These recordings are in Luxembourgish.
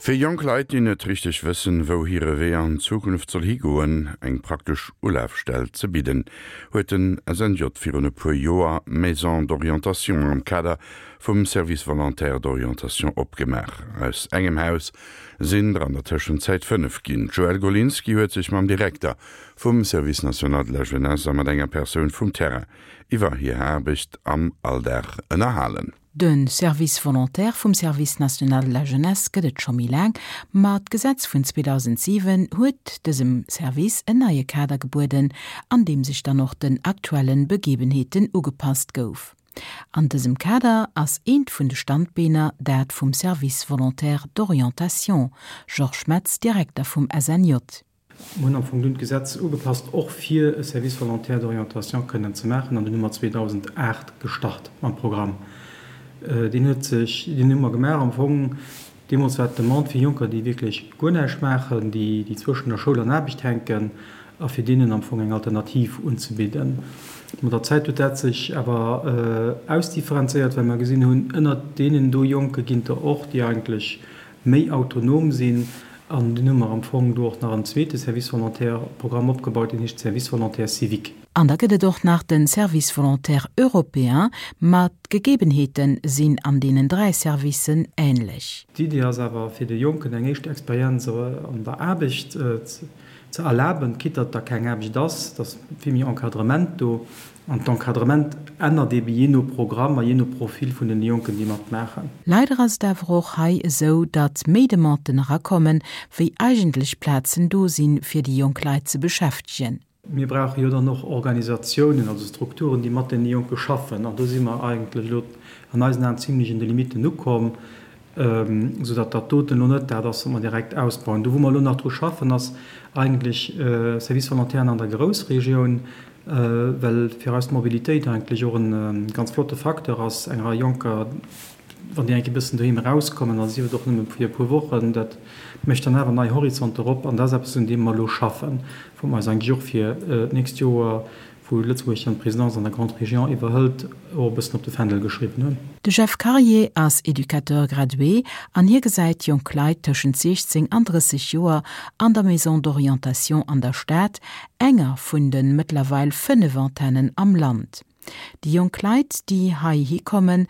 Fir jonk Leit, déi net richteg wëssen, wou hire Wee an Zukunft soll higoen, eng praktesch Ulafstell ze bidden, huet den SNJ virun e puer Joer d'Maison d'orientation am Kader vum Service volontaire d'orientation opgemaach. Aus engem Haus sinn der an der Tëschenzäit 5 ginn. D'Joëlle Golinski huet sech mam Direkter vum Service national de la jeunesse a mat enger Persoun vum Terrain iwwer hir Aarbecht am Alldag ënnerhalen. De Service volontaire vum Service national de la jeunesse gëtt et scho méi laang, ma d'Gesetz vun 2007 huet dësem Service en neie Kader gebueden, an deem sech dann och den aktuelle Begebenheeten ugepasst gouf. An dësem Kader ass eent vun de Standbeener dat vum Service volontaire d'orientation, Georges Metz, Direkter vum SNJ. Mir hunn am Fong dunn d'Gesetz ugepasst, och fir e Service volontaire d'orientation kënnen ze maachen, an dunn hu mer 2008 gestart mam Programm. Deen huet sech, deen hu mer gemaach am Fong, deemools war d'Demande fir Jonker, déi wierklech guer näischt maachen, déi, déi zwëschen der Schoul an Aarbecht hänken, a fir deenen am Fong eng Alternativ unzebidden. Mat der Zäit huet dat sech awer ausdifferenzéiert, well mer gesinn hunn, ënnert deenen do Jonke ginn der och, déi eigentlech méi autonom sinn. An dunn hu mer am Fong do och nach en zweete Service volontaire Programm opgebaut, deen heescht Service volontaire civique. An da gëtt et och nach de Service volontaire européen, ma d'Gegebenheete sinn an deenen 3 Servicen änlech. D'Idee ass awer, fir de Jonken eng éischt Experienz an der Aarbecht ze erlaben, quitte datt da keng Aarbecht ass, et ass vill méi Encadrement do. An d'Encadrement ännert eebe jee no Programm a jee no Profil vun den Jonken, déi matmaachen. Leider ass et awer och hei esou, datt méi Demanden erakommen, wéi eigentlech Plazen do sinn, fir déi jonk Leit ze beschäftegen. Mir brauche jo dann och Organisatiounen, also Strukturen, déi mat deene Jonke schaffen. An do si mer eigentlech elo an eisen Aen zimlech un de Limitten ukomm, soudatt dat doten elo net dat ass, wat mer direkt ausbauen. Do, wou mer elo nach dru schaffen, ass eigentlech Service Volontairen an der Groussregioun, well fir eis d'Mobilitéit eigentlech och e ganz flotte Facteur ass, eng Rei Jonker, wann déi eng Kéier e bëssen doheem erauskommen, a sief et och nëmme fir e puer Wochen, dat mécht dann awer nei Horizonter op. An dat ass eppes, un deem mer elo schaffen, wou mer eis eigentlech och fir d'nächst Joer, wou Lëtzebuerg dann d'Présidence an der Grande Région iwwerhëlt, och e bëssen op de Fändel geschriwwen hunn. De Jeff Karier ass Educateur gradué an hie gesäit jonk Leit tëschent 16 an 30 Joer an der Maison d'orientation an der Stad, enger vun de mëttlerweil 5 Antennen am Land. Déi jonk Leit, déi heihi kommen,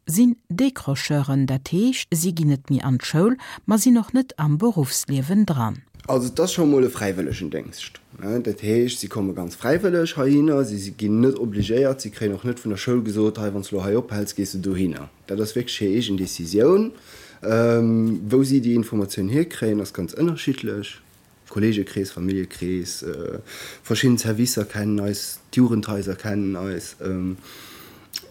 sinn Décrocheuren, dat heescht, si ginn net méi an d'Schoul, ma sinn och net am Beruffsliewen dran. Also et ass scho mol e Fräiwëllegendéngscht. Dat heescht, si komme ganz fräiwëlleg heihinner, si ginn net obligéiert, si kréien och net vun der Schoul gesot, hei wann s de elo hei ophäls, gees de dohinner. Dat ass wierklech hir eegen Decisioun. Wou si déi Informatioun hierkréien, ass ganz ënnerschiddlech. Kolleegekrees, Familljekrees, verschidden Servicer kennen eis, d'Jugendhaiser kennen eis.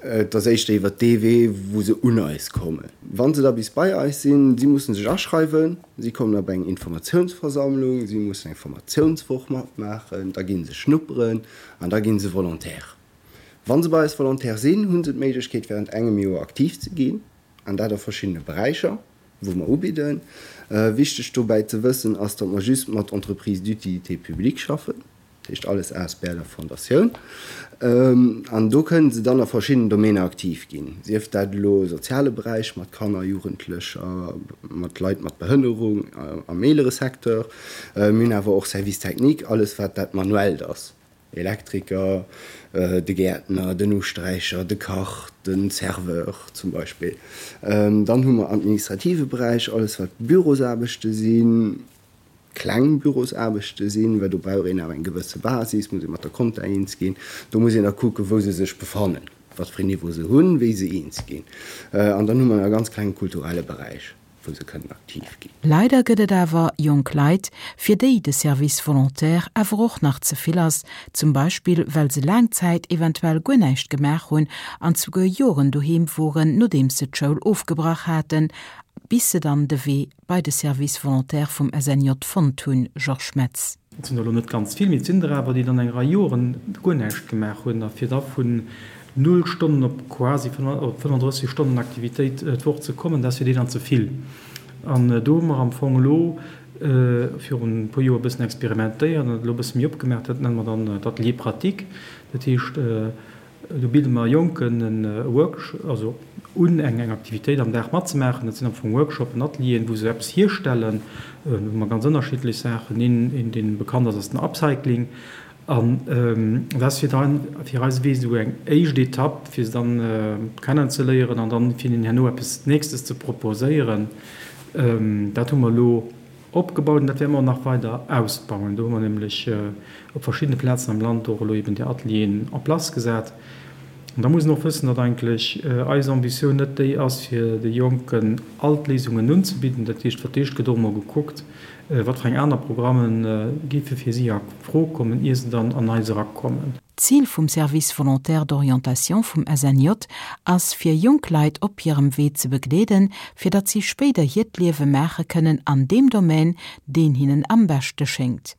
Et ass éischter iwwer dee Wee, wou se un eis kommen. Wa se da bis bei eis sinn, si mussen sech aschreiwen, si kommen op eng Informatiounsversammlung, si mussen eng Formatiounswoch matmaachen, da gi se schnupperen an da gi se Volontaire. Wa se bei eis Volontaire sinn, hu se d'Méiglechkeet während engem Joer aktiv ze ginn, an dat a verschiddene Beräicher. wou mer ubidden. Wichteg dobäi ze wëssen ass, datt mer just mat Entreprises d'utilité publique schaffen, dat heescht alles asbl a Fondatioun. An do kënnen se dann a verschiddenen Domäner aktiv ginn, sief dat elo soziale Beräich mat Kanner, Jugendlecher, mat Leit mat Behënnerung am eelere Secteur. Mir hunn awer och Service technique, alles wat dat Manuellt ass. Elektriker, de Gäertner, den Usträicher, de Kach, de Serveur zum Beispill. Dann hu mer administrative Beräich, alles wat Bürosaarbechte sinn, kleng Bürosaarbechte sinn, well do brauch een awer eng gewësse Basis, muss ee mat der Compta eens ginn. Do muss een da kucken, wou se sech befannen, wat fir een Niveau se hunn, wéi se eens ginn. An dann hu mer e ganz klenge kulturelle Beräich. wou se kënnen aktiv ginn. Leider gëtt et awer jonk Leit, fir déi de Service volontaire awer och nach ze vill ass, zum Beispill well se laang Zäit eventuell guer näischt gemaach hunn an zuguer Joren doheem woren, nodeems se d'Schoul ofgebrach haten, bis se dann de Wee bei de Service volontaire vum SNJ fonnt hunn. Georges Metz. Et sinn der elo net ganz vill, mee et sinn der awer, déi dann eng Rei Joren guer näischt gemaach hunn a fir da vun null Stonnen op quasi op 35 Stonnen Aktivitéit d'Woch ze kommen, dat ass fir déi dann ze vill. An do hu mer am Fong elo virun e puer Joer e bëssen experimentéiert an dat elo e bësse méi opgemaach. Dat nenne mer dann d'Atelier pratique. Dat heescht. Do bidde mer Jonken e Workshop, also un, eng eng Aktivitéit am Dag matzemaachen. Dat sinn am Fong Workshopen, Atelieren, wou se eppes hierstellen. Do hu mer ganz ënnerschiddlech Saachen. Een, een dee bekannt ass, ass den Upcycling. An dat ass fir dann, fir eise Wee esou eng éischt Etapp, fir se dann kennenzeléieren an dann fir hinnen herno eppes Nächstes ze proposéieren. Dat hu mer elo opgebaut an dat wäerte mer och nach weider ausbauen. Do hu mer nämlech op verschiddene Plazen am Land och elo eben déi Atelieren en place gesat. An da muss een och wëssen, datt eigentlech eis Ambitioun net déi ass, fir de Jonken all d'Léisungen unzebidden. Dat heescht, fir d'éischt gëtt och emol gekuckt, wat fir eng aner Programme géife fir si a Fro kommen, ier se dann an eis erakommen. D'Zil vum Service volontaire d'orientation vum SNJ ass fir jonk Leit op hirem Wee ze begleeden, fir datt si spéider hiert Liewe maache kënnen an deem Domaine, deen hinnen am beschte schéngt.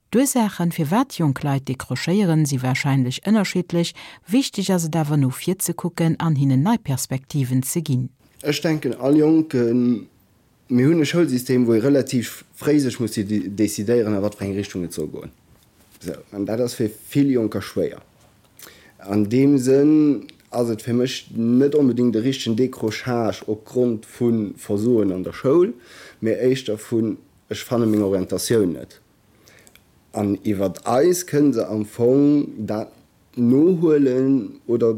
D'Ursaachen, firwat jonk Leit decrochéieren, si warscheinlech ënnerschiddlech. Wichteg ass et awer no vir ze kucken an hinnen nei Perspektiven ze ginn. Ech denken all Jonken Mir hunn e Schoulsystem, wou ee relativ fréi sech muss decidéieren, a wat fir eng Richtung et soll goen. Sou, an dat ass fir vill Jonker schwéier. An deem Sënn ass et fir mech net onbedéngt e richtegen Décrochage opgrond vu Versoen an der Schoul, mee éischter vun ech fanne meng Orientatioun net. An iwwert eis kënne se am Fong dat nohuelen oder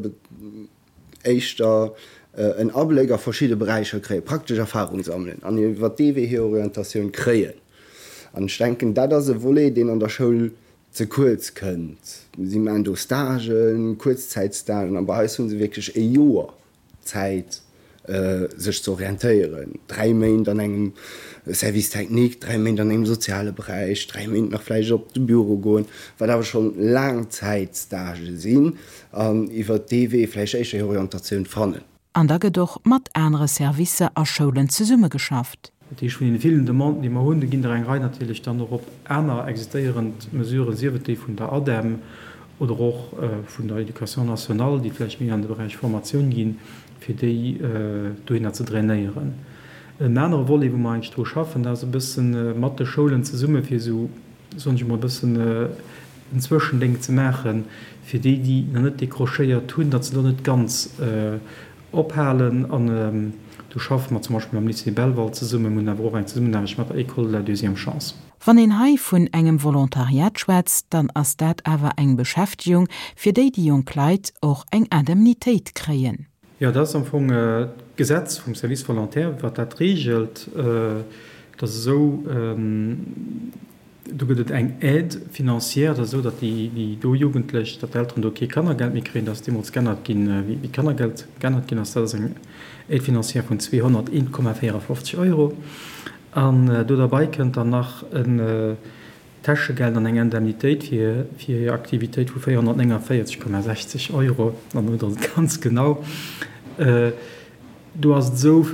éischter en Abléck a verschidde Beräicher kréien, praktesch Erfahrung sammelen an iwwer dee Wee hir Orientatioun kréien. An ech denken, dat ass e Volet, deen an der Schoul ze kuerz kënnt. Si maachen do Stagen, Kuerzzäitstagen, a bei eis hu se wierklech e Joer Zäit, sech ze orientéieren, 3 Méint an engem Service technique, 3 Méint an engem soziale Beräich, 3 Méint nach vläicht op de Büro goen, wat awer schonn Laangzäitstagë sinn, an iwwert dee Wee vläicht éischter hir Orientatioun fannen. An da gëtt och mat anere Servicer a Schoulen zesummegeschafft. Dat heescht, vun deene villen Demanden, déi mer hunn, do ginn der eng Rei natierlech dann och op aner existéierend Mesuren, sief et déi vun der ADEM oder och vun der Éducation nationale, déi vläicht méi an de Beräich Formatioun ginn, fir déi dohinner ze drainéieren. En anere Volet, wou mer eigentlech dru schaffen, dat ass e bësse mat de Schoulen zesumme fir esou, soen ech emol, e bëssen en Zwëschendéng ze maachen, fir déi, déi nach net décrochéiert hunn, datt se do net ganz ophalen. An do schaffe mer zum Beispill mam Lycée Belval zesummen, mir hunn awer och eng Zesummenaarbecht mat der École de la deuxième chance. Wann een hei vun engem Volontariat schwätzt, dann ass dat awer eng Beschäftegung, fir déi déi jonk Leit och eng Indemnitéit kréien. Jo, dat ass am Fong d'Gesetz vum Service volontaire, wat dat reegelt. Et ass esou, do gëtt et eng Aide financière, dat ass esou, datt déi do Jugendlech, datt d'Elteren do kee Kannergeld méi kréien. Dat ass deemools g'ännert ginn, wéi d'Kannergeld g'ännert ginn ass. Dat ass eng Aide financière vun 201,54 Euro. An do derbei kënnt dann nach en Täschegeld an eng Indemnitéit fir hir Aktivitéit vu 449,60 Euro. Dann hutt Der et ganz genau. Do ass et esou,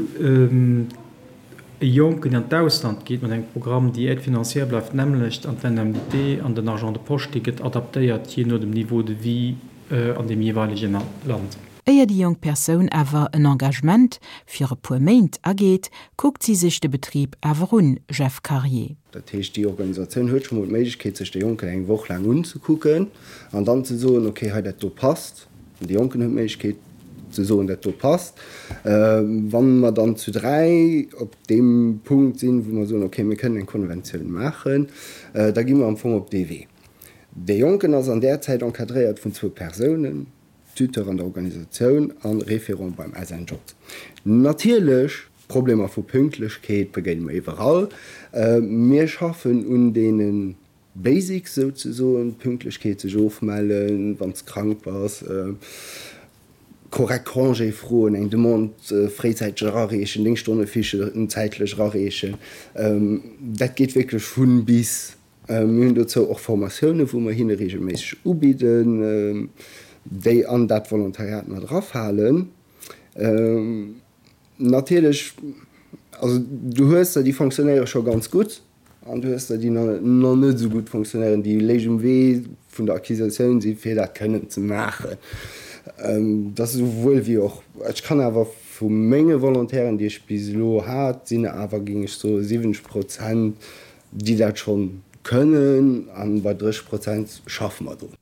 e Jonken, deen an d'Ausland geet mat engem Programm, déi Aide financière bleift d'nämmlecht an d'Indemnité an den Argent de poche, dee gëtt adaptéiert jee no dem Niveau de vie an deem jeeweilege Land. Éier déi jonk Persoun awer en Engagement fir e puer Méint ageet, kuckt si sech de Betrib awer un, Jeff Karier. Dat heescht, déi Organisatioun huet scho mol d'Méiglechkeet, sech de Jonken eng Woch laang unzekucken an dann ze soen, okay, hei dat do passt. An de Jonken huet d'Méiglechkeet ze soen, dat do passt. Wa mer dann zu 3 op deem Punkt sinn, wou mer soen, okay, mir kënnen eng Konventioun maachen, da gi mer am Fong op dee Wee. Dee Jonken ass an där Zäit encadréiert vun zwou Persounen. Tuteur an der Organisatioun an Référent beim SNJ. Natierlech, Problemer vu Pünktlechkeet begéine mer iwwerall. Mir schaffen un deene Basics souzesoen, Pünktlechkeet, sech ofmellen, wann s de krank bass, korrekt Congé froen, eng Demande fréizäiteg erareechen, deng Stonnefiche zäitlech erareechen. Dat geet wierklech vun bis. Mir hunn dozou och Formatiounen, wou mer hinne regelméisseg ubidden, déi an dat Volontariat mat erafalen. Natierlech, also du hues der, déi fonctionnéiere scho ganz gutt, an du hues der, déi nach net esou gutt fonctionnéieren, déi léich um Wee vun der Acquisitioun si fir dat kënnen ze maachen. Dat ass esouwuel wéi och. Ech kann awer vu menge Volontairen, déi ech bis elo hat, sinn awer, géing ech soen, 70 Prozent, déi dat schonn kënnen, an bei 30 Prozent schaffe mer drun.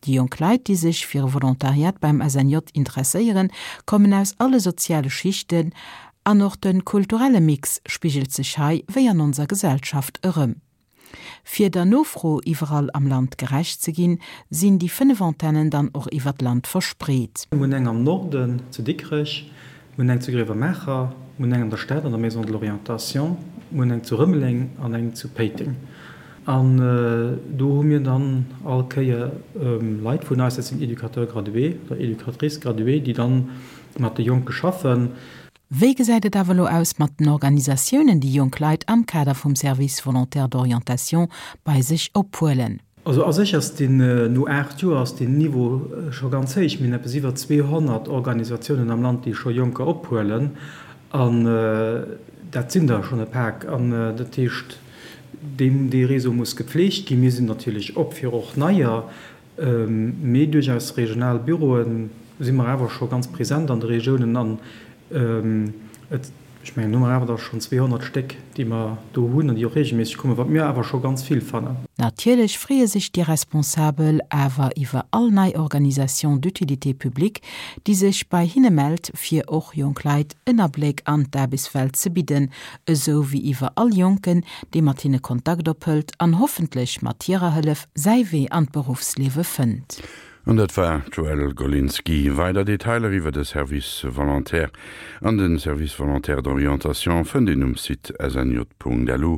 Déi jonk Leit, déi sech fir e Volontariat beim SNJ interesséieren, kommen aus alle soziale Schichten an och de kulturelle Mix spigelt sech hei, wéi an onser Gesellschaft, erëm. Fir der Nofro iwwerall am Land gerecht ze ginn, sinn déi 5 Antennen dann och iwwer d'Land verspreet. Mir hunn eng am Norden zu Dikrech, mir hunn eng zu Grevenmacher, mir hunn eng an der Stad an der Maison de l'Orientation, mir hunn eng zu Rëmeleng an eng zu Péiteng. An do hu mir dann all Kéier Leit vun eis, dat sinn Éducateurs gradués oder Éducatrices graduées, déi dann mat de Jonke schaffen. Wéi gesäit et awer elo aus mat den Organisatiounen, déi jonk Leit am Kader vum Service volontaire d'orientation bei sech ophuelen? Also a sech ass deen, no 8 Joer ass deen Niveau scho ganz héich. Mir hunn eppes iwwer 200 Organisatiounen am Land, déi scho Jonker ophuelen. An dat sinn der schonn e Pak. An dat heescht, deen, dee Réseau muss gepflegt ginn. Mir sinn natierlech op fir och neier, mee duerch eis regional Büroe si mer awer scho ganz present an de Regiounen. An et, ech mengen, hu mer awer da schonn 200 Stéck, déi mer do hunn an déi och reegelméisseg kommen, wat mir awer scho ganz vill fannen. Natierlech freeë sech déi Responsabel awer iwwer all nei Organisation d'utilité publique, déi sech bei hinne mellt, fir och jonk Leit en Abléck an d'Aarbechtswelt ze bidden, esou wéi iwwer all Jonken, dee mat hinne Kontakt ophëlt an hoffentlech mat hirer Hëllef säi Wee an d'Beruffsliewe fënnt. An dat war d'Joëlle Golinski. Weider Detailer iwwer de Service volontaire an de Service volontaire d'orientation fënnt een um Site snj.lu,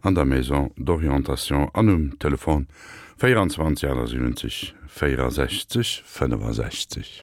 an der Maison d'orientation an um Telefon 24 78 64 65.